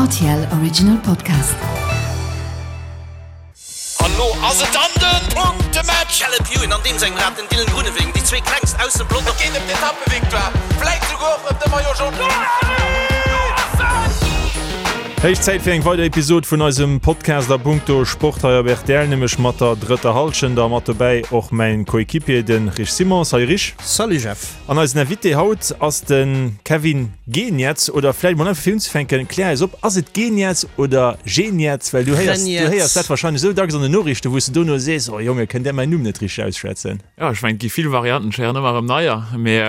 RTL Original Podcast. An lo ass et dann den Punktematch! Caleb Ewan an deem sengem Rad, den Dylan Groenewegen, déi zwee klengst aus dem Pelotong. Et geet ëm d'Etappevictoire, vläit souguer och ëm de Maillot Jaune. Héich Zäit fir eng weider Episod vun eisem Podcast a punkto Sport hei op rtl, nämlech mat der drëtter Hallschent a mat dobäi och mäin Coéquipier, de Rich Simons. Salut Rich. Salut Jeff. An eisen Invité haut ass de Kevin Geniets. Oder vläicht mol einfach fir unzefänken, klär eis op, ass et Geniets oder Geniets? Well du héiers, du héiers dat wahrscheinlech esou dacks an den Noriichten, wou s de dono sees, oh Jonge, kënnt där mäin Numm net richteg ausschwätzen? Jo, ech mengen, et gi vill Varianten, ech héieren ëmmer erëm neier, mee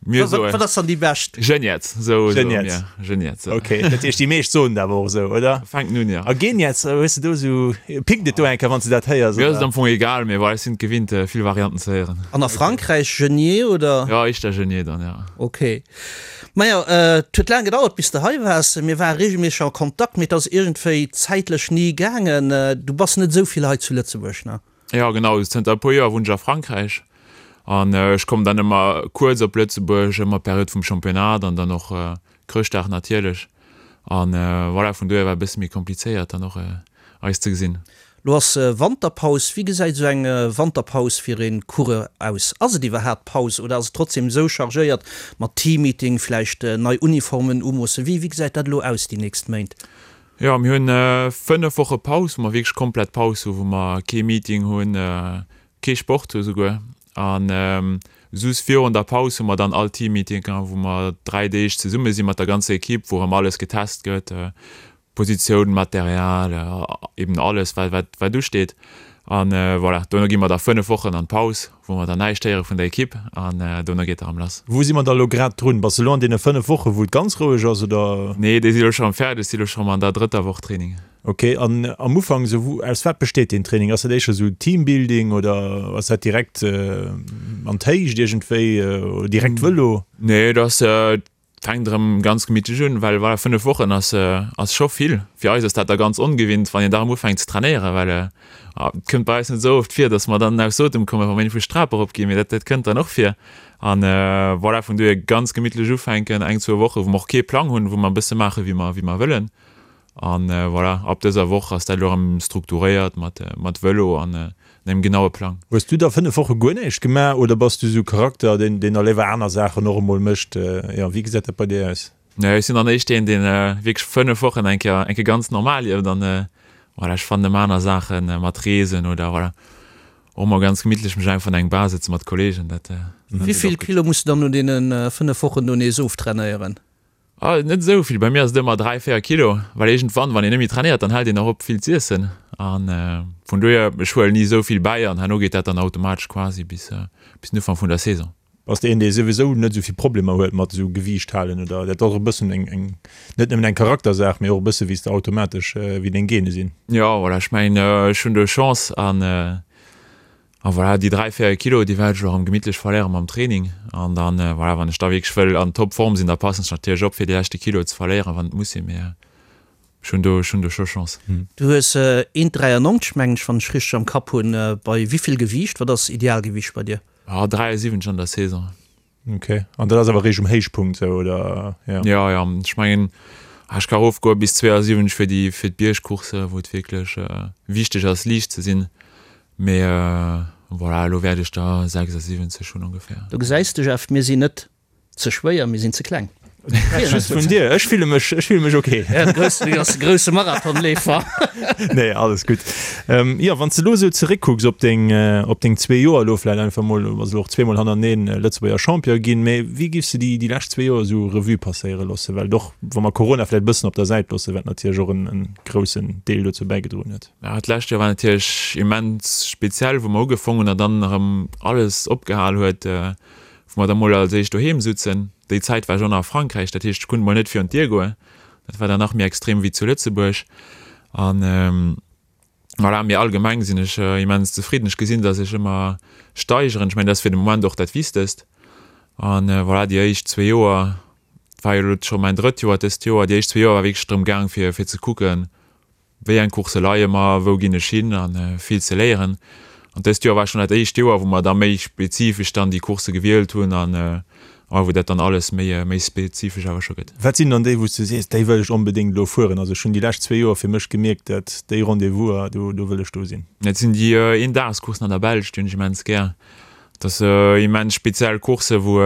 mir soen. Wat ass dann déi bescht? Geniets, sou soe mir. Geniets. Ok, dat heescht, déi meescht soen et awer och esou, oder? Fänken un, jo. A Geniets, hues de do esou, pickt et do eng Kéier, wann s de dat héiers, Mir ass et am Fong egal, mee voilà, ech sinn et gewinnt, vill Varianten ze héieren. An a Frankräich Genier, oder? Jo, éischter Genier dann, jo. Ok. Majo, et huet laang gedauert, bis de hei waars. Mir ware reegelméisseg a Kontakt, mee et ass iergendwéi zäitlech ni gaangen. Du bass net esou vill hei zu Lëtzebuerg, ne? Jo genau, zënter e puer Joer wunnen ech a Frankräich an ech kommen dann ëmmer kuerz op Lëtzebuerg, ëmmer Period vum Championnat an dann och Chrëschtdag natierlech. An voilà, vun dohier war e bësse méi komplizéiert dann och eis ze gesinn. Lo ass Wanterpaus. Wéi gesäit esou eng Wanterpaus fir ee Coureur aus? Ass et iwwerhaapt Paus oder ass et trotzdem esou chargéiert mat Teammeeting, vläicht nei Uniformen umoossen? Wéi gesäit dat elo aus déi nächst Méint? Jo, mir hunn 5 Woche Paus, wou mer wierklech komplett Paus hu, wou mer kee Meeting hunn, kee Sport hu souguer. An soss virun der Paus hu mer dann all Teammeetinge, wou mer 3 Deeg zesumme si mat der ganzer Ekipp, wou erëm alles getest gëtt, Positioun, Material, eben alles wat wat usteet. An voilà, dono gi mer da 5 Wochen an d'Paus, wou mer dann näischt héiere vun der Ekipp an dono geet erëm lass. Wou si mer da elo grad drun? Bass de elo an deene 5 Wochen, wou et ganz roueg ass, oder? Nee, déi si elo scho rëm fäerdeg, si elo scho rëm an der drëtter Woch Training. Ok, an am Ufank esou, wou, aus wat besteet deen Training? Ass dat éischter esou Teambuilding oder ass dat direkt an d'Héicht iergendwéi oder direkt Vëlo? Nee, et ass Fänkt erëm ganz gemittlech un, well voilà, 5 Wochen ass ass scho vill. Fir eis ass dat da ganz ongewinnt, wann een da erëm ufänkt ze trainéieren, well et kënnt bei eis net esou oft vir, datt mer dann aus Otem kommen, wa mer iergendwou d'Trap erop ginn, mee dat dat kënnt dann och vir. An voilà, vun dohier ganz gemittlech ufänken, eng, zwou Woche wou mer och kee Plang hunn, wou mer e bësse maache wéi mer wéi mer wëllen. An voilà, ab dëser Woch ass dat elo erëm strukturéiert mat mat Vëlo an engem genaue Plang. Hues du da 5 Woche guer näischt gemaach oder bass du sou Charakter deen deen da léiwer aner Saachen och emol mécht? Jo, wéi gesäit dat bei dir aus? Nee, ech sinn dann éischt deen deen wierklech 5 Wochen eng Kéier eng Kéier ganz normal lieft an voilà, ech fannen ëmmer aner Saachen mat Reesen oder voilà och mol ganz gemittlech mech einfach an eng Bar sëtzen mat Kollegen, dat dat Wéi geet vill och gutt. Kilo muss du dann no deene 5 Wochen do nees oftrainéieren? Ah, net esou vill. Bei mir ass et ëmmer 3, 4 Kilo, well iergendwann, wann een net méi trainéiert, dann hält een och op vill z'iessen. An vun dohier, ech huelen ni esou vill bäi an herno geet dat dann automatesch quasi bis bis den Ufank vun der Saison. Bass de een, dee souwisou net esou vill Problemer huet mat esou Gewiicht halen oder dat ass och e bëssen eng eng net nëmmen eng Charaktersaach, mee och e bësse wéi s de automatesch, wéi deng Gene sinn? Jo, voilà, ech mengen, ech hunn do Chance an A voilà, déi 3, 4 Kilo, déi wäert ech elo erëm gemittlech verléiere mam Training. An dann, voilà, wann ech da wierklech wëll an Topform sinn, da passen ech natierlech op, fir déi leschte Kilo ze verléieren, wann et muss sinn. Mee ech hunn do, ech hunn do scho Chance. Du hues 1,93 mengen ech, wann ech richteg am Kapp hunn. Bei wéivill Gewiicht? Wat ass Idealgewiicht bei dir? Ah, 73 an der Saison. Ok, an dat ass awer réischt um Héichpunkt sou, oder? Ja. Ja, ja, ech mengen, ech ka erofgoe bis 72 fir déi, fir d'Biergcoursse, wou et wierklech wichteg ass, liicht ze sinn. Mee voilà, elo wäert ech der 76 hunn ongeféier. Do gesäis de, Jeff, mir sinn net ze schwéier, mir sinn ze kleng. Just vun dir, ech fille mech, ech fille mech ok. Ja, de groussen, du ass de grousse Marathonleefer. Nee, alles gutt. Ähm, jo, wann s de elo esou zeréckkucks op deng, op deng zwee Joer elo vläicht einfach mol, du bass elo och zweemol hannerteneen Lëtzebuerger Champion ginn, mee wéi giffs de déi, déi lescht zwee Joer esou Revue passéiere loossen? Well och wa mer Corona vläicht e bëssen op der Säit loossen, wat natierlech och en, en groussen Deel dozou bäigedroen huet. Ja, d'lescht Joer war natierlech immens speziell, wou mer ugefong hunn a dann erëm alles opgehal huet, wou mer da mol als éischt doheem sutzen. Déi Zäit war ech och nach a Frankräich, dat heescht, ech konnt mol net virun d'Dier goen. Dat war dann nach méi extrem wéi zu Lëtzebuerg. An voilà, mee allgemeng sinn ech immens zefridden. Ech gesinn, datt ech ëmmer steigeren. Ech mengen, dat ass fir de Moment och dat Wichtegst. An voilà, déi éischt zwee Joer, et war jo elo scho mäin drëtt Joer dëst Joer, déi éischt zwee Joer war wierklech drëm gaang, fir fir ze kucken, Wéi eng Coursse leie mer, wou ginn ech hin an vill ze léieren. An dëst Joer war schonn dat éischt Joer, wou mer da méi spezifesch dann déi Coursse gewielt hunn an a A wou dat dann alles méi, méi spezifesch awer scho gëtt. Wat sinn dann déi, wou s du sees, déi wëll ech onbedéngt elo fueren? Also ech hunn déi lescht zwee Joer fir mech gemierkt, dat déi Rendez-vouser, do, do wëll ech do sinn. Dat sinn déi Eendagscoursen an der Belsch, déi hunn ech immens gär. Dat ass immens speziell Coursse wou,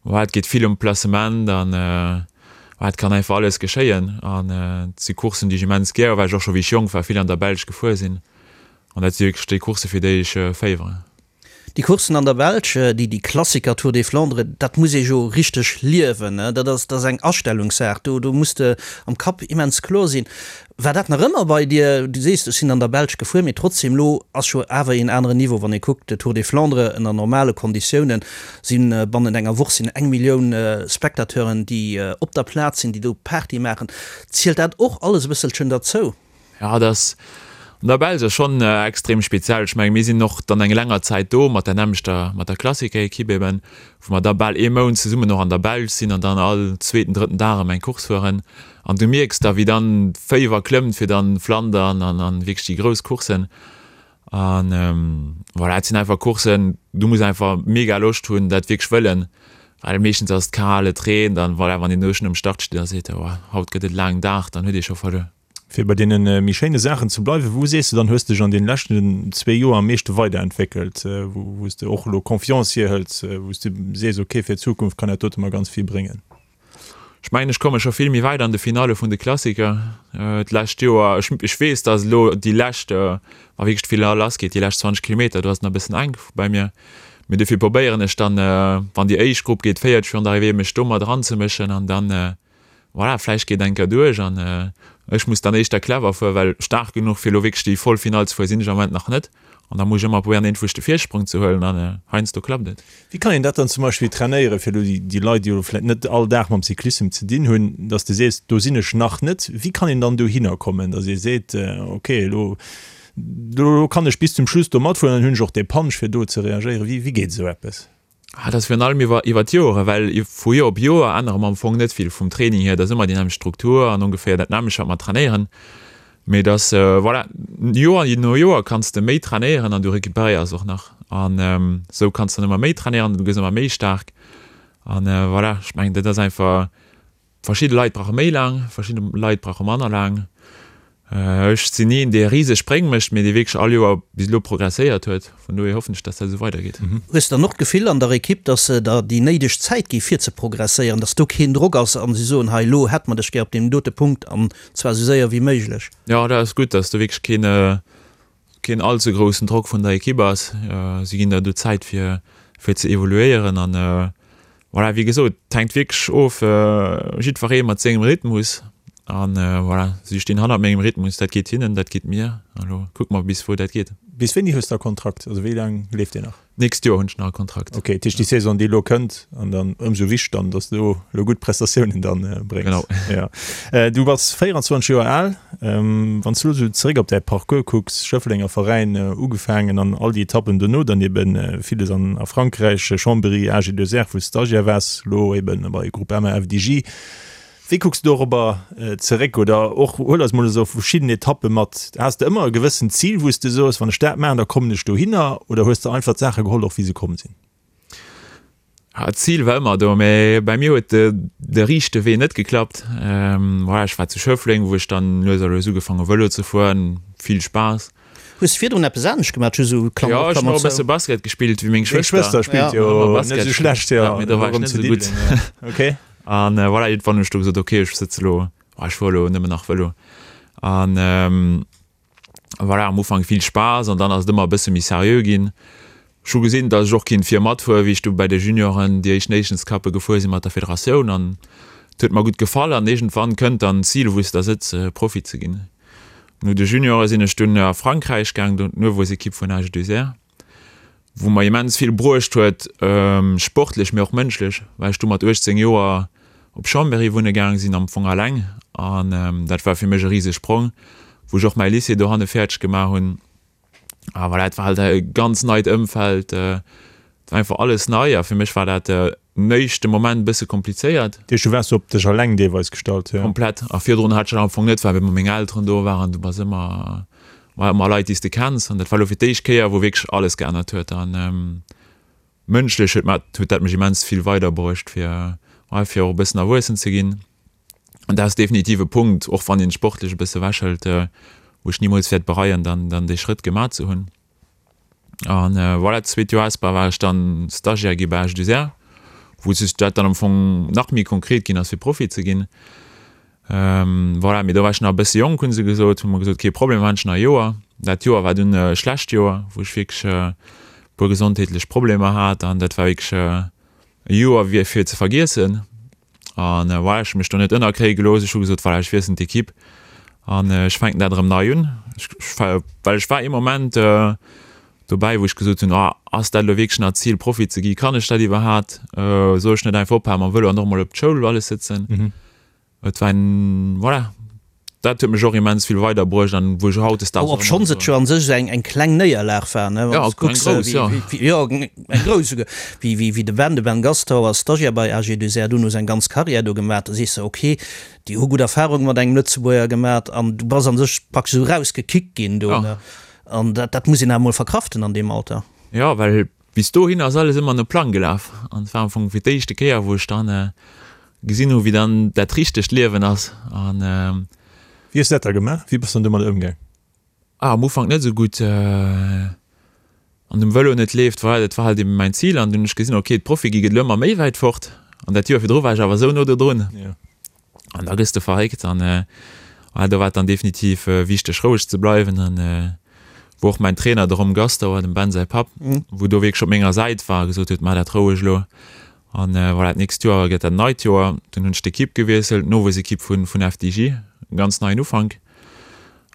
wou et geet vill ëm Placement an wou et kann einfach alles geschéien. An et si Courssen, déi ech immens gär hu, well ech och scho wéi ech jonk war vill an der Belsch gefuer sinn. An dat si wierklech déi Coursse fir déi ech féiweren. Déi Courssen an der Belsch, déi déi Klassiker Tour des Flandres, dat muss ee jo richteg liewen. Dat ass, dat ass eng Astellungssaach. Do, do muss de am Kapp immens kloer sinn. War dat nach ëmmer bei dir? Du sees, ech sinn an der Belsch gefuer, mee trotzdem, elo ass jo awer een aneren Niveau, wann ee kuckt, de Tour des Flandres ënner normale Konditiounen si bannent enger Woch sinn eng Millioun Spectateuren, déi op der Plaz sinn, déi do Party maachen. Zielt dat och alles e bësselchen derzou? Jo, dat ass an der Belsch ass schonn extrem speziell. Ech mengen, mir sinn och dann eng länger Zäit do mat der nämmlechter, mat der Klassiker-Ekipp eben, wou mer da bal ee Mount zesummen och an der Belsch sinn an dann all zweeten, drëtten Dag erëm eng Course fueren. An du mierks da, wéi dann d'Féiwer klëmmt fir dann Flandern an an wierklech déi grouss Courssen. An voilà, et sinn einfach Courssen, du muss einfach mega Loscht hunn, dat wierklech wëllen, well meeschtens ass et kal, et reent an voilà, wann een do schonn um Start steet a seet, oh haut gëtt et e laangen Dag, dann huet ee scho verluer. Fir bei deene méi schéine Saachen ze bleiwen, wou sees de dann, hues dech an deene leschten zwee Joer am meeschte weiderentwéckelt, wou s de och elo Confiance hierhëls, wou s de sees, ok, fir d'Zukunft kann dat dote mer ganz vill bréngen? Ech mengen, ech komme scho vill méi wäit an de Finalle vun de Klassiker. D'lescht Joer, ech ech weess, datt elo déi lescht, wa wierklech d'Finall lassgeet, déi lescht 20 Kilometer, do ass et nach e bëssen enk bei mir. Mee dofir probéieren ech dann, wann déi éischt Grupp geet, 40 virun der Arrivée, mech do mat eranzemëschen an dann, Voilà, vläicht geet eng Kéier duerch an ech muss dann éischter clever fueren, well staark genuch fir elo wierklech déi voll Finall ze fueren sinn ech am Moment nach net an da muss ech ëmmer probéieren iergendwou de Virsprong ze huelen an heiansdo klappt et. Wéi kann een dat dann zum Beispill trainéieren, fir elo déi Leit, déi elo vläicht net all Dag mam Cyclissem ze dinn hunn, dass de sees, do sinn ech nach net. Wéi kann een dann dohinner kommen, dass ee seet, ok, elo elo kann ech bis zum Schluss do matfueren, dann hunn ech och dee Punch fir do ze reagéieren. Wéi wéi geet esou eppes? Ah, dat ass virun allem iwwer, iwwer d'Joren, well vu Joer op Joer ännere mer am Fong net vill vum Training hier. Et ass ëmmer déi nämmlecht Struktur an ongeféier dat nämmlecht, wat mer trainéieren. Mee et ass, voilà, Joer no Joer kanns de méi trainéieren an du recuperéiers och nach. An esou kanns de dann ëmmer méi trainéieren an du gëss ëmmer méi staark. An voilà, ech mengen, dat ass einfach. Verschidde Leit brauche méi laang, verschidde Leit brauche manner laang. Ech sinn ni een, dee riseg Spréng mécht, mee dee wierklech all Joer bis elo progresséiert huet. Vun dohier hoffen ech, dass dat esou weidergeet. Hues de dann och d'Gefill an der Ekipp, dass se der déi néideg Zäit gi fir ze progresséieren, dass do keen Drock ass a si soen, hei elo hätte mer dech gär op deem dote Punkt an zwar esou séier wéi méiglech? Jo, dat ass gutt, dass do wierklech keen, keen all ze groussen Drock vun der Ekipp ass. Si ginn der do Zäit fir fir ze evoluéieren an voilà, wéi gesot, et hänkt wierklech of, jiddweree mat sengem Rhythmus an voilà, si stinn hannert mengem Rhythmus, dat geet hinnen, dat geet mir an elo kucke mer bis wou dat geet. Bis wéini hues de e Kontrakt, also wéi laang leeft deen nach? D'nächst Joer hunn ech nach e Kontrakt. Ok, dat heescht déi Saison déi elo kënnt an dann ëmsou wichteg dann, datt s du elo gutt Prestatiounen dann bréngs. Genau. Ja. Du bass 24 Joer al. Wann s du elo esou zeréck op däi Parcours kucks, Schëfflenger Veräin ugefaangen an all déi Etappen dono dann eben villes an a Frankräich, Chambéry, AG2R wou s Stagiaire waars, elo eben bei Groupama FDJ. Wéi kucks du dorobber zeréck oder och huel eis mol esou verschidden Etappe mat? Has de ëmmer e gewëssent Zil, wou s de soos, wann ech dat maachen, da kommen ech dohinner oder hues de einfach d'Saache geholl och wéi se komm sinn? Ah, d'Zil war ëmmer do, mä bei mir huet de riichte Wee net geklappt. Voilà, ech war zu Schëffleng, wou ech dann lues a lues ugefaang hu Vëlo ze fueren, vill Spaass. Hues de virdrun eppes anescht gemaach? Just esou Klammer op, Klammer zou. Jo, ech hunn och e bësse Basket gespillt wéi meng Schwëster. Deng Schwëster spillt jo net esou schlecht, jo. Mee do war ech net esou gutt. Okay. An voilà, iergendwann hunn ech du gesot, ok, ech sëtze lo, ech fuere lo nëmmen nach Vëlo. An voilà, am Ufank vill Spaass an dann ass et ëmmer e bësse méi seriö ginn. Ech hu gesinn, datt ech och kinnt vir matfueren, wéi ech du bei de Junioren déi éischt Nations Cuppe gefuer sinn mat der Federatioun an et huet mer gutt gefall an iergendwann kënnt dann d'Zil, wou s de da sëtz, Profi ze ginn. No de Juniore sinn ech dunn a Frankräich gaang, do d'Nowuessekipp vun AG2R. wou mer immens vill bruecht huet, sportlech, mee och mënschlech, well ech du mat 18 Joer op Chambéry wunne gaang sinn, am Fong alleng, an dat war fir mech e riseg Sprong, wou ech och mäi Lycée dohanne fäerdeg gemaach hunn. A voilà, et war halt e ganz neit Ëmfeld, et war einfach alles nei a fir mech war dat den éischte Moment e bësse komplizéiert. Dat heescht, du waars op dech alleng deelweis gestallt, jo? Komplett. A virdrun hat ech dat am Fong net, well ëmmer meng Elteren do waren, du bass ëmmer, war ëmmer Leit, déi s de kenns. An dat war elo fir d'éischt Kéier, wou wierklech alles geännert huet. An. Mënschlech huet mat huet dat mech immens vill weiderbruecht fir ouais fir och e bëssen erwuessen ze ginn. An dat ass definitiv e Punkt, och wann een sportlech e bësse ewechhëlt, wou ech nimools wäert bereien dann dann dee Schrëtt gemaach ze hunn. An voilà, d'zweet Joer Espoir war ech dann Stagiaire gi bei H2R, wou sech dat dann am Fong nach méi konkret ginn ass fir Profi ze ginn. Voilà, mee do war ech nach e bësse jonk, hu se gesot, hu mer gesot, kee Problem, maachen ech nach e Joer. Dat Joer war dunn e schlecht Joer, wou ech wierklech e puer gesondheetlech Problemer hat an dat war wierklech e Joer wéi fir ze vergiessen. An voilà, ech hu mech do net ënnerkréie gelooss. Ech hu gesot, voilà, ech wiesselen d'Ekipp an ech fänken dat erëm nei un. Ech, well ech war ee Moment dobäi, wou ech gesot hunn, oh, ass dat elo wierklech nach d'Zil, Profi ze gi? Kann ech dat iwwerhaat? Soll ech net einfach ophale mam Vëlo an och emol op d'Schoul alles sëtzen? Et war en, voilà, dat huet mech och immens vill weiderbruecht an wou ech hautdesdaags och ëmmer. Obschonns et jo an sech eng eng kleng Néierlag war, ne, wann s kucks, eng grouss, jo. Wéi, jo, eng grouss esouguer, wéi, wéi, wéi de Ben, de Ben Gastauer ass Stagiaire bei AG2R, dunn hu se eng ganz Carrière do gemaach, da sees de, ok, déi hu gutt Erfarunge mat engem Lëtzebuerger gemaach an du bass an sech praktesch esou erausgekickt ginn do, ne, an dat, dat muss een awer emol verkraften an deem Alter. Jo, well Bis dohin ass alles ëmmer no Plang gelaf an et war am Fong fir d'éischte Kéier, wou ech dann gesinn hu wéi dann dat richtegt Liewen ass an. Wéi hues de dat da gemaach? Wéi bass de dann domadder ëmgaang? Ah, am Ufank net esou gutt. An dem Vëlo net leeft, voilà, dat war halt eben mäin Zil an dunn hunn ech gesinn, ok, d'Profi gi gëtt elo ëmmer méi wäit fort an dat Joer virdru war ech awer esou no do drun. An da gëss de verréckt an voilà, do war et dann definitiv wichteg roueg ze bleiwen an wou och mäin Trainer, de Rom Gastauer, dem Ben säi Papp, wou do wierklech op menger Säit war a gesot huet, maach dat roueg elo an voilà, d'nächst Joer gëtt dat neit Joer. Dunn hunn ech d'Ekipp gewiesselt, d'Nowuessekipp vun vun FDJ, e ganz neien Ufank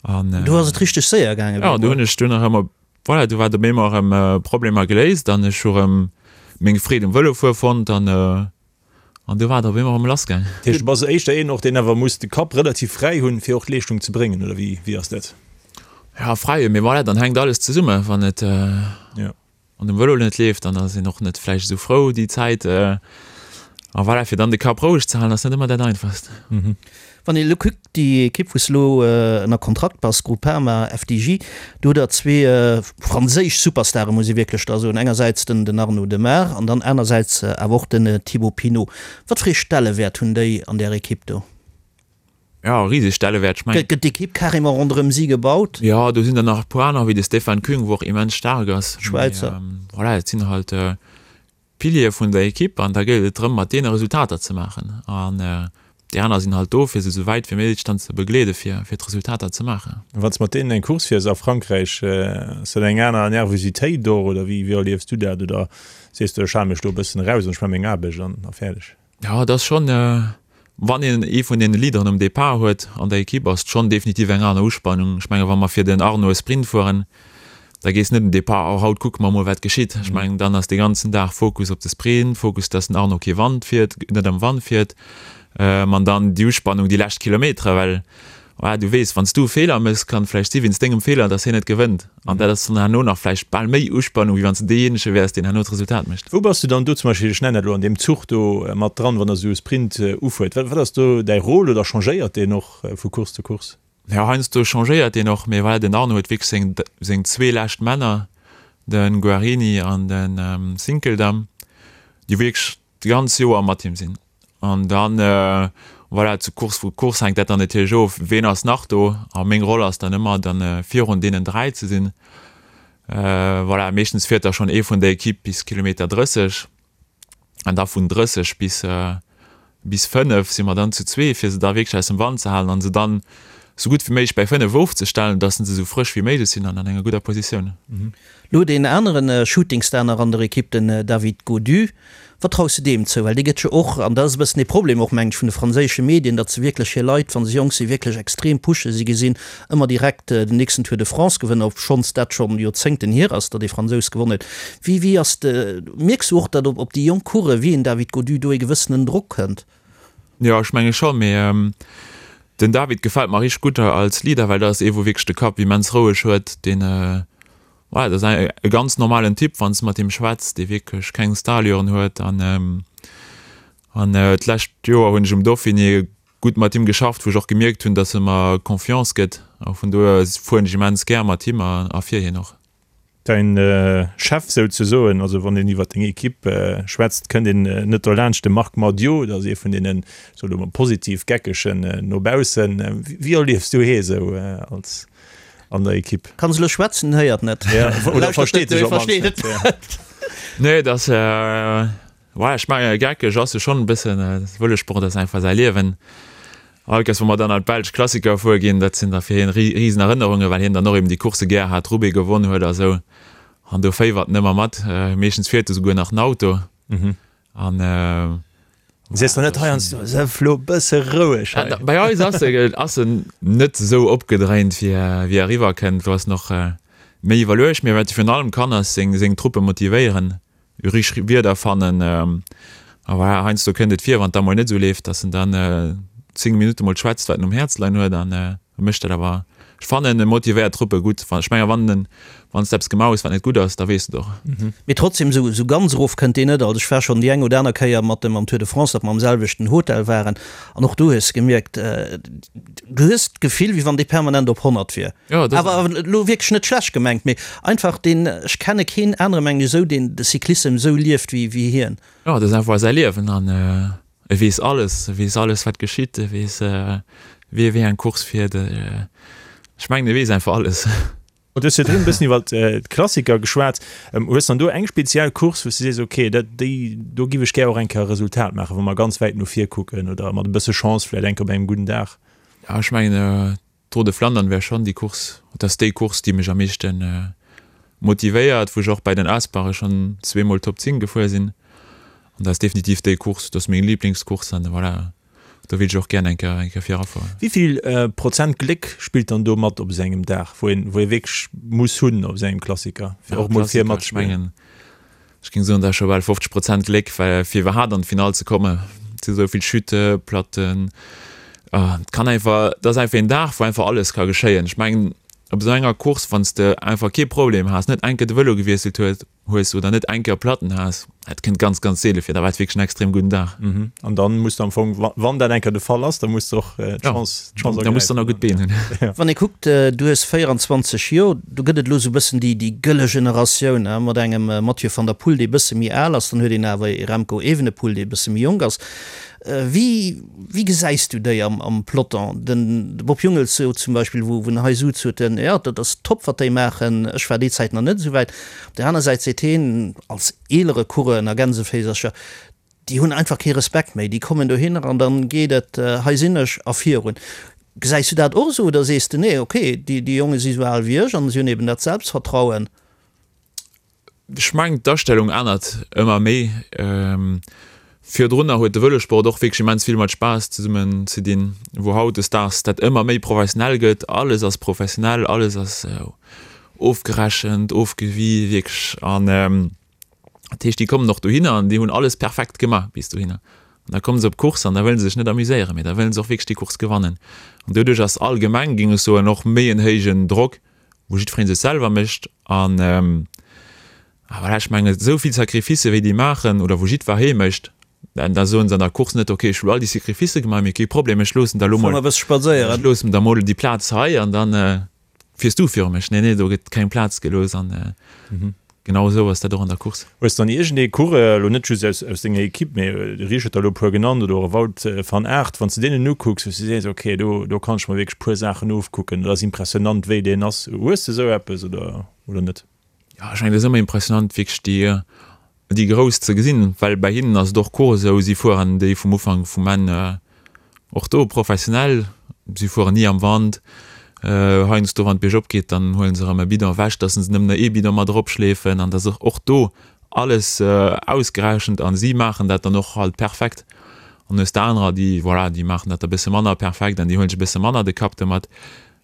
an. Do ass et richteg séier gaangen. Jo, do hunn ech dunn erëm op, voilà, do war et op eemol erëm Problemer geléist an ech hu erëm meng Freed um Vëlofuere fonnt an An du war et op eemol erëm lass gaang. Dat heescht, du bass éischter een och, deen awer muss de Kapp relativ fräi hunn, fir och d'Leeschtung ze bréngen, oder wéi, wéi ass dat? Ja, fräi, mee voilà, dann hänkt alles zesumme. Wann et an dem Vëlo net leeft, dann ass een och net vläicht esou frou déi Zäit. A voilà, fir dann de Kapp roueg ze halen, ass net ëmmer dat Einfachst. Wann een elo kuckt, déi Ekipp wou s de elo ënner Kontrakt bass, Groupama FDJ, do hutt der zwee franséisch Superstare muss ee wierklech da soen, engersäits den den Arnaud Demare an dann anersäits awer och den Thibaut Pinot. Wat fir ee Stellewäert hunn déi an där Ekipp do? Jo, e riseg Stellewäert. Ech mengen. Gëtt d'Ekipp carrément ronderëm si gebaut? Jo, do sinn der nach e puer aner wéi de Stefan Küng, wou och immens staark ass. Schwäizer. Mee voilà, et sinn halt Piliere vun der Ekipp an da gëllt et drëm mat deene Resultater ze maachen an déi aner sinn halt do fir se esou wäit wéi méiglech dann ze begleede fir fir d'Resultater ze maachen. Wann s de mat deenen eng Course fiers a Frankräich, ass dat eng aner Nervositéit och oder wéi wéi erliefs du dat oder sees du ech hale mech do e bëssen eraus an ech maache meng Aarbecht an a fäerdeg? Jo, et ass schonn, wann een ee vun deene Leaderen um Depart huet an der Ekipp, ass et schonn definitiv eng aner Uspannung. Ech menge wa mer fir den Arnaud e Sprint fueren, da gees net um Depart, oh haut kucke mer mol wat geschitt. Ech mengen dann ass dee ganzen Dag Fokus op de Sprint, Fokus, datt den Arnaud kee Wand fiert, net am Wand fiert. An dann déi Uspannung déi lescht Kilometere, well Voilà, du weess, wann s du e Feeler méchs, kann et vläicht si wéinst dengem Feeler, dass hien net gewënnt. An dat ass dann herno nach vläicht bal méi Uspannung, wéi wann s du deejéinege wäers, deen herno d'Resultat mécht. Wou bass du dann do zum Beispill, ech nennen dat elo, an deem Zuch do mat dran, wann der esou e Sprint ufuert? Wat ass do däi Rôle oder changéiert deen och vu Course zu Course? Jo, heiansdo changéiert deen och, mee voilà, den Arno huet wierklech seng, seng zwee lescht Männer, de Guarini an de Sinkeldam, déi wierklech d'ganz Joer mat him sinn. An dann, voilà, zu Course vu Course hänkt dat dann natierlech of, ween ass nach do. A meng Roll ass dann ëmmer dann virun deenen 3 ze sinn. Voilà, meeschtens fiert da schonn ee vun der Ekipp bis Kilometer 30 an da vun 30 bis bis 5 si mer dann zu zwee, fir se da wierklech aus dem Wand ze halen an se dann esou gutt wéi méiglech bäi 5 ofzestellen, dass se esou frësch wéi méiglech sinn an an enger gudder Positioun. Lo deen aneren Shootingstar nach an der Ekipp, den David Gaudu. Wat traus de deem zou? Well dee gëtt jo och, an dat ass e bëssen ee Problem och, mengen ech, vun de franséische Medien, datt se wierklech hir Leit, wa se jonk sinn, wierklech extrem pushen. Si gesinn ëmmer direkt den nächsten Tour de France Gewënner, obschonns dat schonn Joerzéngten hier ass, datt ee Fransous gewonnen huet. Wéi, wéi ass de, mierks du och, datt op déi jonk Coureuren, wéi een David Gaudu, do ee gewëssenen Drock kënnt? Jo, ech menge scho, mee den David gefält mer richteg gutt als Leader, well dat ass ee wou wierklech de Kapp immens roueg huet, deen, voilà, dat ass e ganz normalen Typ wann s de mat him schwätz, dee wierklech keng Starallüren huet an an d'lescht Joer hunn ech um Dauphiné gutt mat him geschafft, wou ech och gemierkt hunn, datt e mer Confiance gëtt a vun dohier fueren ech immens gär mat him a fir hien och. Däin Chef souzesoen, also wann een iwwer deng Equipe schwätzt, kënnt een net dolaanscht de Marc Madiot, dat ass ee vun deenen, soe lo mol positiv Geckegen no baussen. Wéi erliefs du hee sou als an der Equipe? Kann se lo schwätzen, en héiert net. Oder versteet sech op d'mannst net. Nee, et ass, ouais, ech mengen geckeg ass e schonn e bëssen. Vëlosport ass einfach säi Liewen. All Kéiers wou mer dann an d'belsch Klassiker fuer ginn, dat sinn da fir hien risen Erënnerungen, well hien dann och eben déi Coursse gär hat, Roubaix gewonn huet a sou. An do féiwert en ëmmer mat. Meeschtens fiert e souguer nach den Auto. An Sees der net heiansdo, Sëff lo bësse roueg hei? Bei eis ass e ass en net esou opgedréint wéi wéi eriwwer kënnt. Do ass en och méi iwwerluecht. Mee wat e virun allem kann ass seng seng Truppe motivéieren. Richteg Wierder fannen. A voilà, heiansdo kënnt et vir, wann et da mol net esou leeft, dass en dann 10 Minutte mol schwätzt, wat en um Häerz leien huet an e mécht dat awer. Ech fannen, e motivéiert d'Truppe gutt. Ech mengen, wann en, wann s de eppes gemaach hues, wat net gutt ass, da weess de et och. Mee trotzdem, esou, esou ganz erof kënnt deen net. Also ech war schonn déi eng oder aner Kéier mat em am Tour de France, datt mer am selwechten Hotel waren an och do hues de gemierkt, du hues d'Gefill, wéi wann dee permanent op 100 wier. Ja, dat Awer elo wierklech net schlecht gemengt, mee einfach deen, ech kenne keen anere mengen ech esou, deen de Cyclissem esou lieft wéi wéi hien. Jo, dat ass einfach säi Liewen an e weess alles, e weess alles wat geschitt, e weess wie wéi eng Course fiert, ech mengen e weess einfach alles. Du hues virdrun e bëssen iwwer d'Klassiker geschwat. Hues dann do eng speziell Course, wou s du sees, ok, dat déi do giff ech gär och eng Kéier e Resultat maachen, wa mer ganz wäit no vir kucken oder mat e bësse Chance vläicht eng Kéier op engem gudden Dag? Ja, ech mengen D'Tour de Flandern wär schonn déi Course, et ass déi Course, déi mech am meeschte motivéiert, wou ech och bei den Aspare schonn zweemol Top 10 gefuer sinn. An dat ass definitiv déi Course, dat ass meng Liblingscourse an voilà, do wéilt ech och gären eng Kéier, eng Kéier virafueren. Wéi vill Prozent Gléck spillt dann do mat op esou engem Dag, wou een, wou ee wierklech muss hunn op esou engem Klassiker, fir och mol vir matzespillen? Ech géing soen, dat ass scho bal 50 Prozent Gléck, well fir iwwerhaapt an d'Finall ze kommen, et si sou vill Chute, Platten, et kann einfach, et ass einfach een Dag, wou einfach alles ka geschéien. Ech mengen, op esou enger Course, wann s de einfach kee Problem has, net eng Kéier de Vëlo gewiesselt huet, hues oder net eng Kéier Platten has, dat kënnt ganz, ganz seele vir, da war et wierklech en extrem gudden Dag. An dann muss de am Fong, wann dat eng Kéier de Fall ass, da muss de och d'Chance, d'Chance ergräifen. Da muss de nach gutt Been hunn. Wann ee kuckt, du hues 24 Joer, Do gëtt et elo esou e bëssen déi déi gëlle Generatioun, hein, mat engem Mathieu van der Poel, dee e bësse méi al ass, dann huet een awer ee Remco Evenepoel, dee e bësse méi jonk ass. Wéi wéi gesäis du déi am am Peloton? Den de Bob Jungels sot zum Beispill, wou wou en hei sutz, huet en, jo, dat ass top, wat déi maachen, ech war déi Zäit nach net esou wäit. Op där aner Säit seet heen, als eelere Coureur, ënner Gänseféisercher, Déi hunn einfach kee Respekt méi. Déi kommen dohinner an dann geet et, hei sinn ech a virun. Gesäis du dat och esou oder sees de, nee, okay, déi Jonge si sou al wéi ech an si hunn eben dat Selbstvertrauen? Ech mengen, d'Astellung ännert ëmmer méi. Virdrunner huet de Vëlosport och wierklech immens vill mat Spaass zesummen ze dinn, wou hautdesdaags dat ëmmer méi professionell gëtt. Alles ass professionell, alles ass ofgerechent, ofgewie wierklech an. Dat heescht, déi kommen och dohinner an déi hunn alles perfekt gemaach bis dohinner. An da komme se op d'Course an da wëlle se sech net amuséieren, mee da wëlle se och wierklech déi Course gewannen. An doduerch ass allgemeng, géing ech soen, och méi en héijen Drock, wou jiddweree sech selwer mécht. An a voilà, ech mengen, esou vill Sacrificë wéi déi maachen oder wou jiddweree mécht, da soen se an der Course net, okay, ech hu all déi Sacrificë gemaach, mee kee Problem, ech loossen der elo mol, ech loossen der mol déi Plaz hei an dann Fiers du viru mech? Nee, nee, do gëtt keng Plaz gelooss an genau esou ass dat och an der Course. Hues dann iergendee Coureur, elo net just aus aus denger Equipe, mee de Rich huet der elo e puer genannt oder och e Wout van Aert, wann s de deenen ukucks, wou s de sees, ok, do do kann ech mer wierklech e puer Saachen ofkucken, dat ass impressionant wéi deen ass. Hues de esou eppes oder oder net? Jo, ech mengen, et ass ëmmer impressionant wierklech déi déi Grouss ze gesinn, well bei hinnen ass et och Course esou, si fueren déi vum Ufank vum Enn och do professionell, si fueren ni am Wand. Heiansdo wann et biergop geet, dann huelen se erëm e Bidon ewech, dass se nëmmen nach ee Bidon mat eropschleefen an dass och do alles ausgerechent an si maachen dat dann och halt perfekt. An hues de anerer, déi voilà, déi maachen dat da bësse manner perfekt an déi huelen sech e bësse manner de Kapp domat.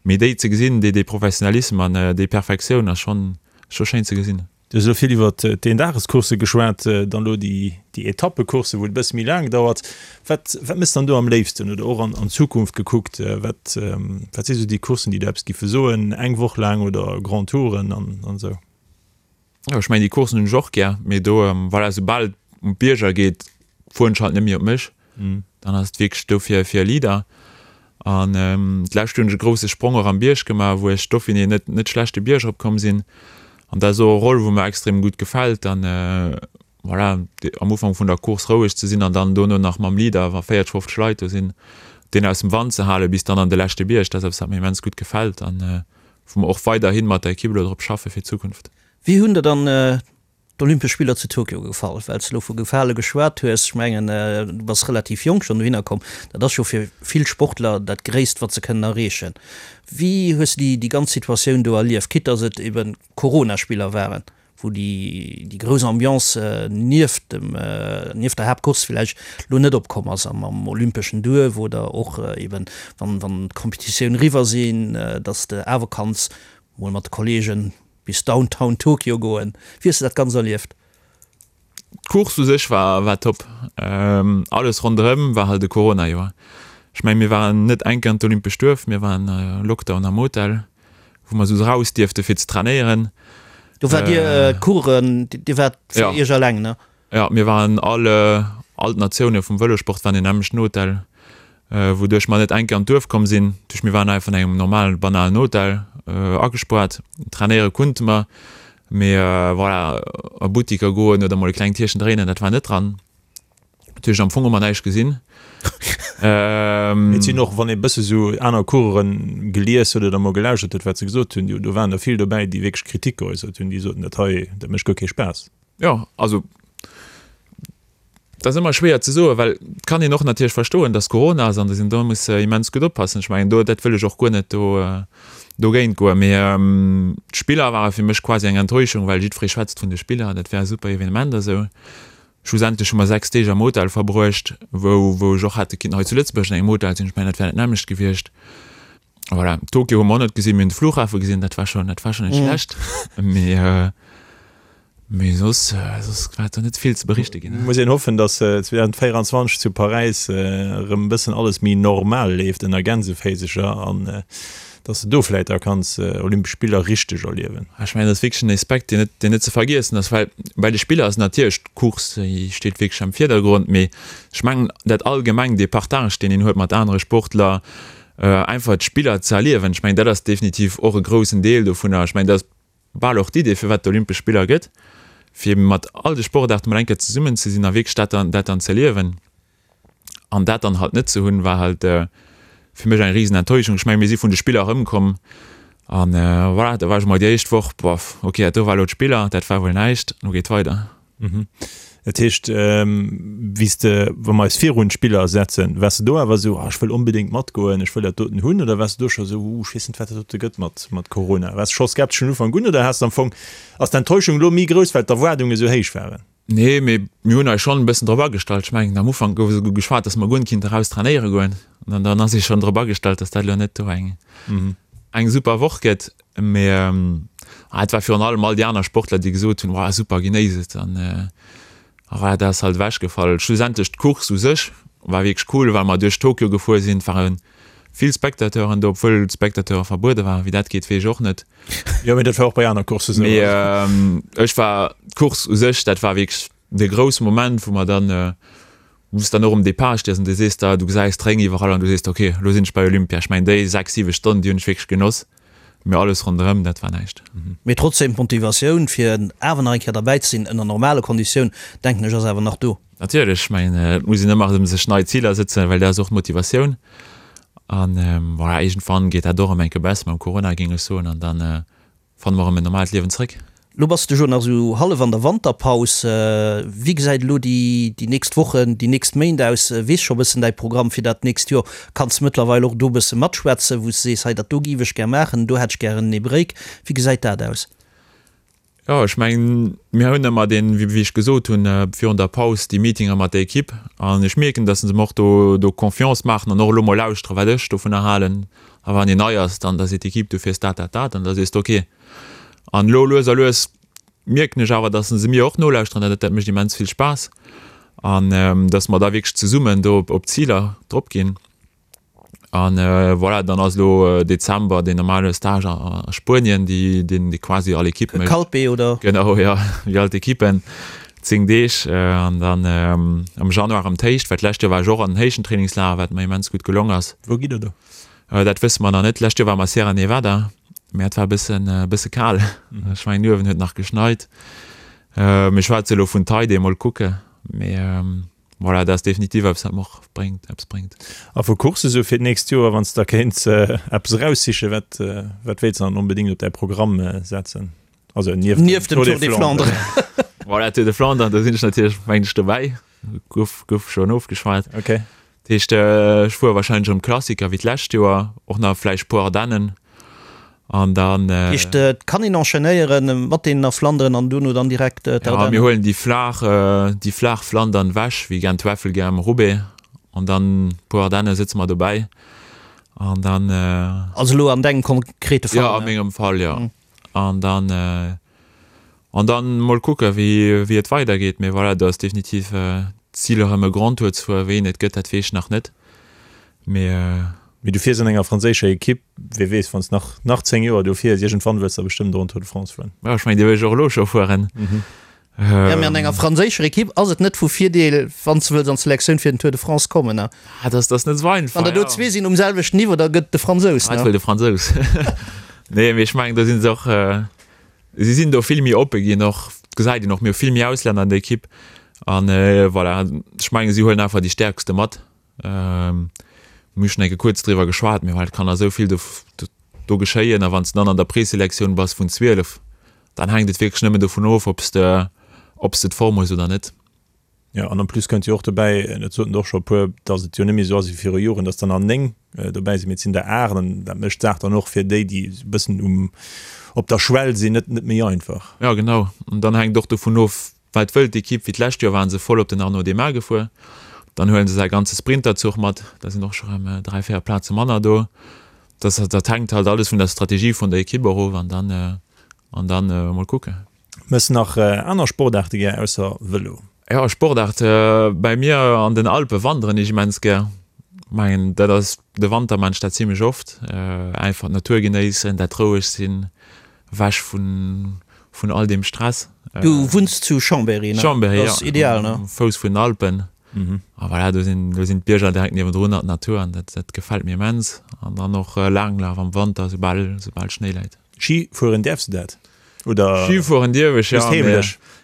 Mee déi ze gesinn, déi dee Professionalisme an déi Perfektioun ass schonn scho schéin ze gesinn. Du hues elo vill iwwer d'Eendagescoursse geschwat, dann elo déi Etappecoursse, wou et e bësse méi laang dauert. Wat wat méchs dann do am léifsten oder och an Zukunft gekuckt, wat wat si sou déi Courssen, déi der eppes giffe soen, eng Woch laang oder Grand Touren an an esou? Jo, ech mengen déi Courssen hunn ech och gär, mee do, voilà, soubal et un d'Bierger geet, fueren ech halt net méi op mech. Dann ass et wierklech do fir fir e Leader. An d'lescht Joer hunn ech e grousse Sprong och am Bierg gemaach, wou ech Dauphiné net net schlecht de Bierg eropkomm sinn. An dat ass och e Roll, wou mer extrem gutt gefält. An voilà, am Ufank vun der Course roueg ze sinn an dann dono nach mam Leader, wa 40, 50 Leit do sinn, deen aus dem Wand ze halen bis dann an de leschte Bierg, dat ass eppes, wat mir immens gutt gefält an wou mer och weiderhi mat der Ekipp elo drop schaffe fir d'Zukunft. Wéi hunn der dann d'Olympesch Spiller zu Tokio gefall? Well s de elo vu gefale geschwat hues, ech mengen, du bass relativ jonk schonn dohinner komm, dat ass scho fir vill Sportler dat Gréisst, wat se kënnen erreechen. Wéi hues de déi ganz Situatioun do erlieft, quitte datt et eben Corona-Spiller waren, wou déi déi grouss Ambiance nieft dem nieft der Haaptcourse villäicht elo net opkomm ass am am olympeschen Duerf oder och eben wann wann d'Competitioun eriwwer sinn, datt s de awer kanns mol mat de Kollegen bis Downtown Tokio goen. Wéi hues de dat Ganzt erlieft? D'Course u sech war war top. Alles ronderëm war halt e Corona-Joer. Ech mengen, mir waren net eng Kéier an d'Olympescht Duerf, mir waren Lockdown am Hotel, wou mer esou raus dierfte fir ze trainéieren. Do waart Dir Coureuren, Dir waart fir Iech eleng, ne? Jo, mir waren all, all d'Natioune vum Vëlosport waren an engem nämmlechten Hotel, wouduerch mer net eng Kéier an d'Duerf komm sinn. Duerch mir waren einfach an engem normalen, banalen Hotel agespoart. Trainéiere kunnte mer, mee voilà, a Buttiker goen oder mol e klengt Tierchen dréinen, dat war net dran. Dat heescht, am Fong hu mer näischt gesinn. Et sinn och, wann ee bësse sou aner Coureuren gelies huet oder mol gelauschtert huet, wat se gesot hunn, do waren der vill dobäi, déi wierklech Kritik geäussert hunn, déi soten, dat hei, dat mécht guer kee Spaass. Jo, also dat ass ëmmer schwéier ze soen, well et kann een och natierlech verstoen, datt Corona ass an datt een do muss immens gutt oppassen. Ech mengen do, dat wëll ech och guer net do dogéint goen. Mee d'Spiller ware fir mech quasi eng Enttäuschung, well jiddweree schwätzt vun de Spiller, dat wär e super Evenement a sou. Schlussendlech hu mer 6 Deeg am Hotel verbruecht, wou wou ech och hätte kinnten hei zu Lëtzebuerg an engem Hotel sinn. Ech mengen, dat wär dat nämmlecht gewiescht. Voilà, Tokio hu mer och net gesinn, mir hunn de Flughafe gesinn, dat war schonn, dat war schonn net schlecht. Mee mee soss soss war do net vill ze berichte ginn. Muss een hoffen, datt 2024 zu Paräis erëm e bëssen alles méi normal leeft, ënner Gänseféisecher, an Dass de do vläit da kanns Olympesch Spiller richteg erliewen. Ech mengen, dat ass wierklech en Aspekt, deen net, deen net ze vergiessen ass, well bei de Spiller ass natierlech d'Course, déi steet wierklech am Virdergrond, mee ech mengen, dat allgemeng, dee Partage, deen een huet mat anere Sportler, einfach d'Spiller ze erliewen, ech mengen, dat ass definitiv och e groussen Deel dovunner. Ech mengen, dat ass bal och d'Idee, firwat d'Olympesch Spiller gëtt, fir mat all de Sportaarte mol eng Kéier zesummen ze sinn a wierklech dat dann, dat dann z'erliewen. An dat dann halt net ze hunn, war halt fir mech eng risen Enttäuschung. Ech mengen, mir si vun de Spiller erëmkomm an voilà, da war ech emol déi éischt Woch, boff, ok, dat do war elo d'Spiller, dat war wuel näischt, elo geet weider. Dat heescht, wéi s de, wa mer eis virun d'Spiller setzen, waars de do awer esou, ah ech wëll onbedéngt matgoen, ech wëll dat doten hunn, oder waars de do scho esou, uh, ech weess net, wat dat dote gëtt mat, mat Corona? Waars de scho skeptesch vun Ufank un oder has de am Fong, ass d'Enttäuschung elo méi grouss, well d'Erwaardunge esou héich waren? Nee, mee mir hunn eis schonn e bëssen drop agestallt. Ech mengen, am Ufank gouf esouguer geschwat, dass mer guer net kinnte raus trainéiere goen. An dann ass ee schonn drop agestallt, dass dat elo net do eng, eng super Woch gëtt. Mee et war virun allem all déi aner Sportler, déi gesot hunn, Wow, super, genéiss et. An voilà, dat ass halt ewechgefall. Schlussendlech d'Course u sech war wierklech cool, well mer duerch Tokio gefuer sinn. Et ware vill Spectateuren do, obwuel d'Spectateure verbuede waren. Wéi dat geet, weess ech och net. Jo, mee dat war och bei aner Courssen esou. Mee ech war, d'Course u sech, dat war wierklech de grousse Moment, wou mer dann, wou s dann och um Depart stees an du sees der, du gesäis d'Réng iwwerall an du sees der, okay, elo sinn ech bei Olympia. Ech mengen, déi 6, 7 Stonnen, déi hunn ech wierklech genoss, mee alles ronderëm, dat war näischt. Mee trotzdem, d'Motivatioun, fir awer nach eng Kéier derbäi ze sinn, ënner normale Konditioun, denken ech, ass awer nach do. Natierlech, ech mengen, et muss een ëmmer erëm sech nei Ziler sëtzen, well dat ass och d'Motivatioun. An voilà, iergendwann geet dat och erëm eng Kéier besser mam Corona, géing ech soen, an da fanne mer erëm en normalt Liewen zréck. Lo bass de jo nach esou hallef an der Wanterpaus. Wéi gesäit elo déi déi nächst Wochen, déi nächst Méint aus? Weess scho bëssen däi Programm fir dat nächst Joer? Kanns de mëttlerweil och do bësse matschwätzen, wou s de sees, hei dat do géif ech gär maachen, do hätt ech gären ee Break? Wéi gesäit dat aus? Jo, ech mengen, mir hunn ëmmer deen, wéi ech gesot hunn, virun der Paus déi Meetinger mat der Ekipp. An ech mierken, datt se mer och do do Confiance maachen an och elo mol lauschteren, wat ech dovunner halen. A wann een nei ass, dann da seet d'Ekipp, du fiers dat, dat, dat. An da sees de ok. An elo lues a lues mierken ech awer, datt se mir och nolauschteren. Dat dat mécht immens vill Spaass. An datt mer da wierklech zesummen do op d'Ziler drop ginn. An voilà, dann ass elo Dezember deen normale Stage a Spuenien, déi deen déi quasi all Ekipp mécht. Calpe, oder? Genau, jo, wéi all d'Ekippen, 10 Deeg. An dann am Januar erëm d'Héicht, well d'lescht Joer war ech och an den Héichtentrainingslager, wat mer immens gutt gelong ass. Wou gitt der do? Dat wësse mer nach net. D'lescht Joer ware mer Sierra Nevada. Mä et war e bëssen, e bësse kal. Ech mengen uewen huet nach geschneit. Mir schwätze elo vun Taide, mol kucke. Mee voilà, dat ass definitiv eppes, wat mer och bréngt, eppes bréngt. A vu Coursse sou fir d'nächst Joer, wann s de da kéints eppes eraussichen, wat, wat wéilts de dann onbedéngt op däi Programm setzen? Also nieft dem Tour des Flandres. Voilà, Tour de Flandres, do sinn ech natierlech, mengen ech, dobäi. Gouf, gouf schonn ofgeschwat. Okay. Dat heescht, ech fuere wahrscheinlech erëm Klassiker wéi d'lescht Joer, och nach vläicht puer Ardennen an dann. Dat heescht, et kann een enchaînéieren mat deenen a Flanderen an dono dann direkt d'Ardennen? Ja, mir huelen déi flaach, déi flaach Flandern ewech, wéi Gent-Wevelgem, Roubaix an dann puer Ardenne sëtze mer dobäi an dann. Also elo an dengem konkrete Fall? Jo, a mengem Fall, jo. An dann, an dann mol kucke wéi, wéi et weidergeet. Mee voilà, do ass definitiv d'Zil erëm e Grand Tour ze fueren. Wéi een et gëtt, dat weess ech nach net. Mee. Mee du fiers an enger franséischer Ekipp, wie weess, wann s nach, nach 10 Joer do fiers, iergendwann wëlls de bestëmmt och en Tour de France fueren. Jo, ech mengen, dee wëll ech och elo scho fueren. Jo, mee an enger franséischer Ekipp ass et net vu Virdeel, wann s de wëlls an d'Selektioun fir den Tour de France kommen, ne? Ah, dat ass net esou einfach, Wann der do zwee sinn um selwechten Niveau, da gëtt de Fransous, ne? Ah, et wëll de Fransous. Nee, mee ech mengen, do si se och, si sinn do vill méi oppe ginn och, gesäit een och, mir hu vill méi Auslänner an der Ekipp an voilà, ech mengen, si huelen einfach déi Stäerkste mat. Mir hu schonn eng Kéier kuerz driwwer geschwat, mee well et kann nach esou vill do, do geschéien a wann s de dann an der Preselektioun bass vun 12, Dann hänkt et wierklech nëmmen dovun of, ob s de, ob s de d'Form hues oder net. Jo, an en plus kënnt jo och dobäi, dat soten der och scho e puer, datt et jo net méi esou ass wéi viru Joren, datt der nach 9 dobäi sinn, mee et sinn der 8 an dat mécht d'Saach dann och fir déi, déi esou e bëssen um, op der Schwell sinn, net, net méi einfach. Jo, genau. An dann hänkt och dovun of, wat wëllt d'Ekipp. Wéi d'lescht Joer ware se voll op den Arnaud Démare gefuer. Dann huele se säi ganze Sprinterzuch mat, da sinn och scho rëm 3, 4 Plaze manner do. Dat, dat hänkt halt alles vun der Strategie vun der Ekipp och of an dann, An dann mol kucken. Mëss nach aner Sportaarte gär ausser Vëlo? Jo, Sportaart, bäi mir an den Alpe wanderen ech immens gär. Mengen dat ass de Wanter maan ech dat zimlech oft. Einfach d'Natur genéissen, dat roueg sinn, ewech vun vun all deem Stress. Du wunns zu Chambéry, ne? Chambéry, jo. Dat ass ideal, ne? Um Fouss vun den Alpen. A voilà, do sinn do sinn d'Bierger direkt niewendrun an d'Natur an dat dat gefält mir immens. An dann och Laanglaf am Wanter, soubal soubal Schnéi läit. Ski fueren däerfs de dat? Oder Ski fueren dierf ech, jo, mee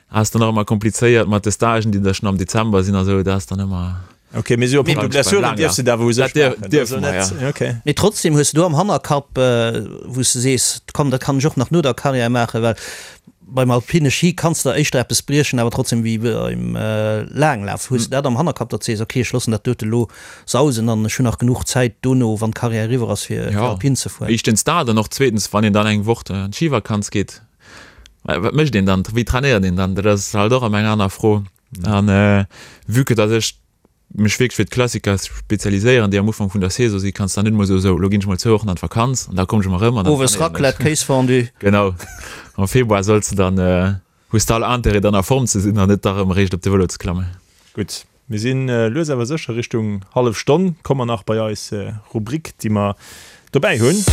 ass dann och ëmmer komplizéiert mat de Stagen, déi da schonn am Dezember sinn a sou, dat ass dann ëmmer. Ok, mee sou a punkto Blessuren dierfs de dat awer u sech maachen? Dat dierfe mer, jo. Ok. Mee trotzdem hues de do am Hannerkapp, wou s de sees, komm, dat kann ech och nach no der Karriär maachen, well Beim alpine Ski kanns de der éischter eppes briechen, awer trotzdem wéi beim Laanglaf. Hues de dat am Hannerkapp, datt de sees, ok, ech loossen dat dote lo sausen an ech hunn nach genuch Zäit dono, wann d'Karriär eriwwer ass, fir alpin ze fueren? Éischtens dat an och zweetens, wann een dann eng Woch an d'Schivakanz geet, wat mécht een dann, wéi trainéiert een dann? Dat ass halt och ëmmer eng aner Fro. An vue que datt ech mech wierklech fir d'Klassiker spezialiséieren, déi am Ufank vun der Saison sinn, kanns dann net emol soen, sou, lo ginn ech mol zwou Wochen an d'Vakanz an da kommen ech emol erëm an dann Owes trainéieren ech. Raclette, Kéisfondue. Genau, am Februar solls de dann, hues de all Intérêt dann a Form ze sinn an net da erëm eréischt op de Vëlo ze klammen. Gutt, mir si lues awer sécher Richtung hallef Stonn. Komme mer nach bei eis Rubrik, déi mer Dobäi hunn.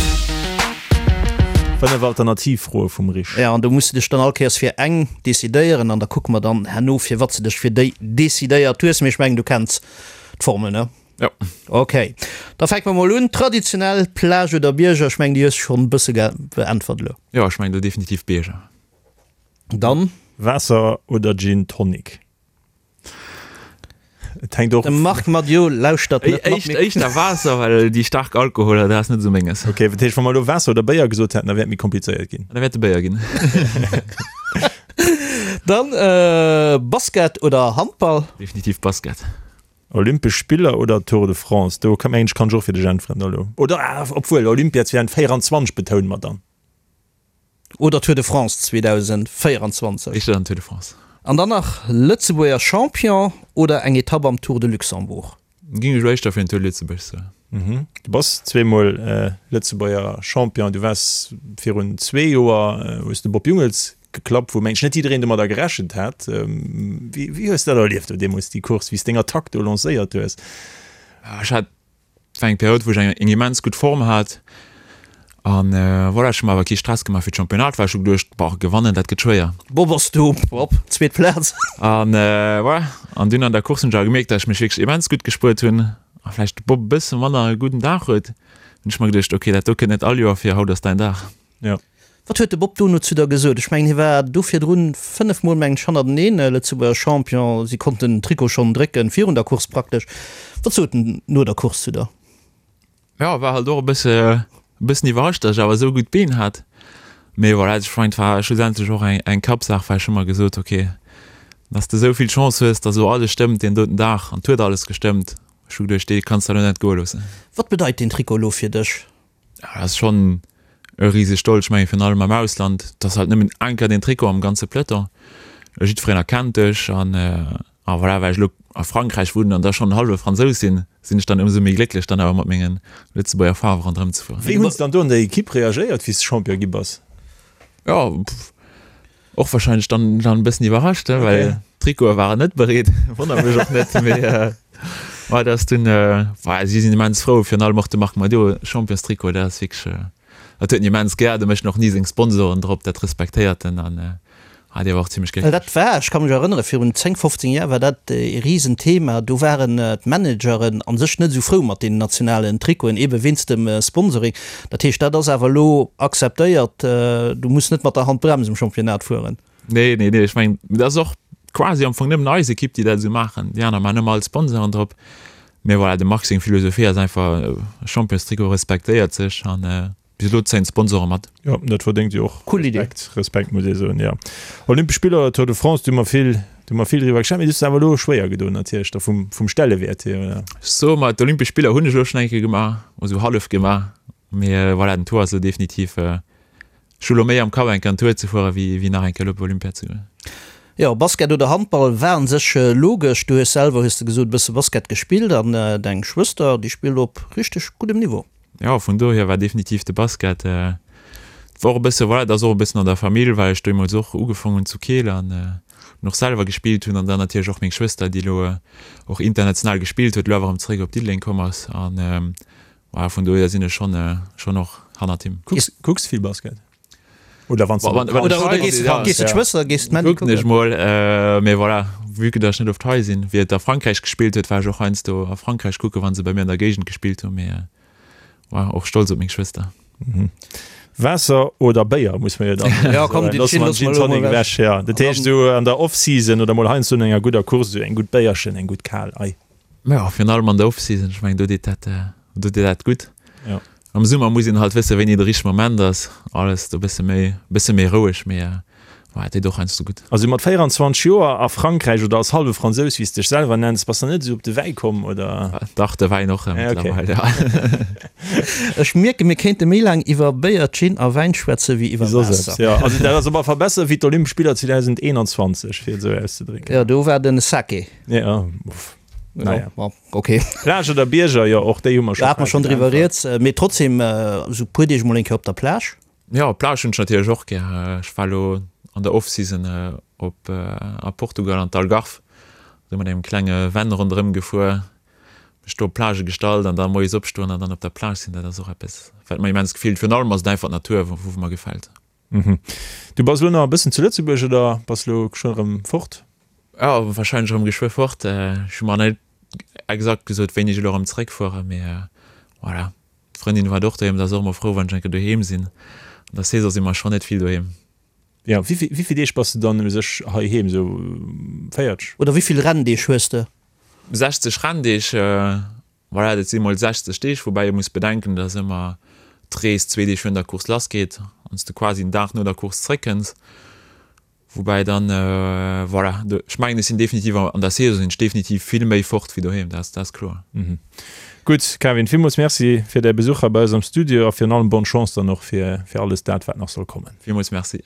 5 Alternativfroe vum Rich. Jo, an do muss de dech dann all Kéiers fir eng decidéieren an da kucke mer dann herno, firwat s de dech fir déi decidéiert hues. Mee ech mengen, du kenns d'Formel, ne? Jo. Ok, da fänke mer mol un. Traditionell, Plage oder Bierger? Ech mengen, déi hues de schonn e bësse beäntwert elo. Jo, ech mengen do definitiv Bierger. Dann? Waasser oder Gin Tonic? Et hänkt och. De Marc Madiot lauschtert net mat. Éischt, éischter Waasser, well déi staark Alkoholer, dat ass net esou menges. Ok, dat heescht, wa mer elo Waasser oder Béier gesot hätten, da wär et méi komplizéiert ginn. Da wär et de Béier ginn. Dann Basket oder Handball? Definitiv Basket. Olympesch Spiller oder Tour de France? Do mengen ech, kann ech och fir dech äntweren elo. Oder, ah, obwuel, Olympia 2024 betoune mer dann. Oder Tour de France 2024. Éischter dann Tour de France. An dann nach Lëtzebuerger Champion oder eng Etapp am Tour de Luxembourg? Ging ech elo éischter fir den Tour de Lëtzebuerg soen. Du bass zweemol Lëtzebuerger Champion. Du waars virun zwee Joer, hues de Bob Jungels geklappt, wou mengen ech net jiddereen domadder gerechent hat. Wéi hues de dat erlieft do deemools, déi Course, wéi s deng Attack do lancéiert hues? Ech hat Et war eng Period, wou ech eng eng immens gutt Form hat an voilà, ech hu mer awer kee Stress gemaach fir d'Championnat, well ech hu geduecht, boah, gewannen, dat gëtt schwéier. Bob ass do, op zweet Plaz. An voilà, an dunn an der Course hunn ech awer gemierkt, datt ech mech wierklech immens gutt gespuert hunn a vläicht de Bob e bësse manner e gudden Dag huet. Hunn ech mer geduecht, ok, dat do kënnt net all Joer vir, haut ass däin Dag. Jo. Wat huet de Bob dono zu der gesot? Ech mengen, hie war do virdrun 5 Mol, mengen ech, hannerteneen Lëtzebuerger Champion. Si konnten den Trikot schonn drécken, virun der Course praktesch. Wat sot en no der Course zu der? Jo, war halt och e bësse, e bëssen iwwerrascht, datt ech awer esou gutt Been hat. Mee voilà, ech mengen, et war schlussendlech och eng, eng Kappsaach, well ech hu mer gesot, ok, datt s de esou vill Chance hues, datt elo alles stëmmt deen doten Dag, an et huet alles gestëmmt. Ech hu geduecht, dee kanns de elo net goe loossen. Wat bedeit deen Trikot elo fir dech? Ja, dat ass schonn e riseg Stolz. Ech mengen, virun allem am Ausland, et ass halt nëmmen eng Kéier deen Trikot am ganze Peloton. Jiddwereen erkennt dech an a voilà, well ech elo a Frankräich wunnen an da schonn en hallwe Fransous sinn, sinn ech dann ëmsou méi glécklech, dann awer mat menge Lëtzebuerger Faarwe ronderëm ze fueren. Wéi hunn se dann do an der Ekipp reagéiert, wéi s de Champion gi bass? Jo, Och wahrscheinlech dann dann e bëssen iwwerrascht, he, well d'Trikote waren net bereet. Wonnert mech och net, mee ouais, dat ass dunn, ouais, si sinn immens frou, virun allem och de Marc Madiot, Championstrikot, dat ass wierklech, dat huet en immens gär, do mécht en och ni seng Sponsoren drop, dat respektéiert en an ah, dee war och zimmlech Well glécklech. dat war, ech ka mech erënnere virun 10, 15 Jar war dat e Risenthema, do waren d'Manageren a sech net esou frou mat deenen nationalen Trikoten, ebe wéinst dem Sponsoring. Dat heescht, dat ass awer elo akzeptéiert, du muss net mat der Handbrems am Championnat fueren. Nee, nee, nee, ech mengen, dat ass och quasi am Fong nëmmen eis Ekipp, déi dat esou maachen. Déi aner maachen ëmmer all Sponsoren drop. Mee voilà, dem Marc seng Philosophie ass einfach, Championstrikot respektéiert sech an bis elo zéien d'Sponsoren mat. Jo, dat verdéngt jo och Cool Idee. Respekt, Respekt muss ee soen, jo. Olympesch Spiller oder Tour de France, do hu mer vill, do hu mer vill driwwer geschwat, mee du hues awer elo schwéier gedoen natierlech da vum, vum Stellewäert hier, oder? Ech soe mer, d'Olympesch Spiller hunn ech elo schonn eng Kéier gemaach, esou hallef gemaach, mee voilà, den Tour ass elo definitiv, ech hu elo méi am Kapp eng Kéier en Tour ze fueren, wéi, wéi nach eng Kéier elo op Olympia ze goen. Jo, Basket oder Handball war an sech logesch. Du hues selwer, hues de gesot, e bësse Basket gespillt an deng Schwëster, déi spillt op richteg guddem Niveau. Jo, vun dohier war definitiv de Basket. Et war och e bësse, voilà, et ass och e bëssen an der Famill, well ech deemools och ugefaang hunn zu Keel an och selwer gespillt hunn an dann natierlech och meng Schwëster, déi elo och international gespillt huet, elo awer erëm zeréck op Diddeleng komm ass. An voilà, vun dohier sinn ech schonn, schonn och hannert him. Kucks, kucks vill Basket? Oder wann s de Wann, wann ech hei sinn, ja. Gees de d'Schwëster, gees d'Mandy kucken? Kucken ech mol, mee voilà, vue que dass ech net oft hei sinn. Wéi et a Frankräich gespillt huet, war ech och heiansdo a Frankräich kucken, wa se bei mir an der Géigend gespillt hunn, mee war och stolz op meng Schwëster. Waasser oder Béier, muss mer jo dann Ja, komm, soen. Gin Loosse mer den loosse Gin mer elo Tonic mol ewech, ja. Dat heescht esou an der Off-Season oder mol heiansdo no enger gudder Course esou eng gutt Béierchen, eng gutt kal, ei. Jo, virun allem an der Off-Season, ech mengen do deet dat, do deet dat gutt. Jo. Am Summer muss een halt wëssen, wéini de richtege Moment ass. Alles do bësse méi, bësse méi roueg, mee ouais, et deet och heiansdo gutt. Also mat 24 Joer a Frankräich oder als hallwe Fransous, wéi s de dech selwer nenns, bass de net esou op de Wäi komm, oder? Dach, de Wäin och mëttlerweil, ja. Ech mierken, mir kéinte méi laang iwwer Béier, Gin a Wäin schwätze wéi iwwer Waasser. Jo, also dat ass op alle Fall besser wéi d'Olympesch Spiller 2021, fir et esou auszedrécken. Jo, do war den Sake. Ja, uff. Naja. Ja, okay. Plage oder Bierger, jo, och déi hu mer scho. Da hat mer schonn driwwer rieds. Mee trotzdem, esou puer Deeg mol eng Kéier op der Plage. Jo, Plage hunn ech natierlech och gär. Ech war elo an der Off-Season op a Portugal an d'Algarve, do mat engem klenge Van ronderëm gefuer, mech do op d'Plage gestallt an da moies opstoen an dann op der Plage sinn, dat ass och eppes, wat mer immens gefillt. Virun allem ass et einfach d'Natur, wou mer gefält. Du bass elo nach e bëssen zu Lëtzebuerg oder bass elo schonn erëm fort? Jo, warscheinlech erëm geschwë fort. Ech hu mer net exakt gesot, wéini ech elo erëm zeréckfueren, mee voilà. D'Frëndin waart och doheem, se ass och ëmmer frou, wann ech eng Kéier doheem sinn. An der Saison si mer schonn net vill doheem. Jo, wéi vill Deeg bass de dann u sech heiheem? Esou 40? Oder wéi vill Renndeeg hues de? 60 Renndeeg. Voilà, dat si mol 60 Deeg, woubäi ee muss bedenken, dass ëmmer d'Rees zwee Deeg virun der Course lassgeet an s de quasi en Dag no der Course zréckkënns. Woubäi dann, voilà, ech mengen, ech sinn definitiv an der Saison sinn ech definitiv vill méi fort wéi doheem, dat ass kloer. Gutt, Kevin, villmools Merci fir däi Besuch hei bei eis am Studio a virun allem bonne Chance dann och fir alles dat, wat nach soll kommen. Villmools Merci.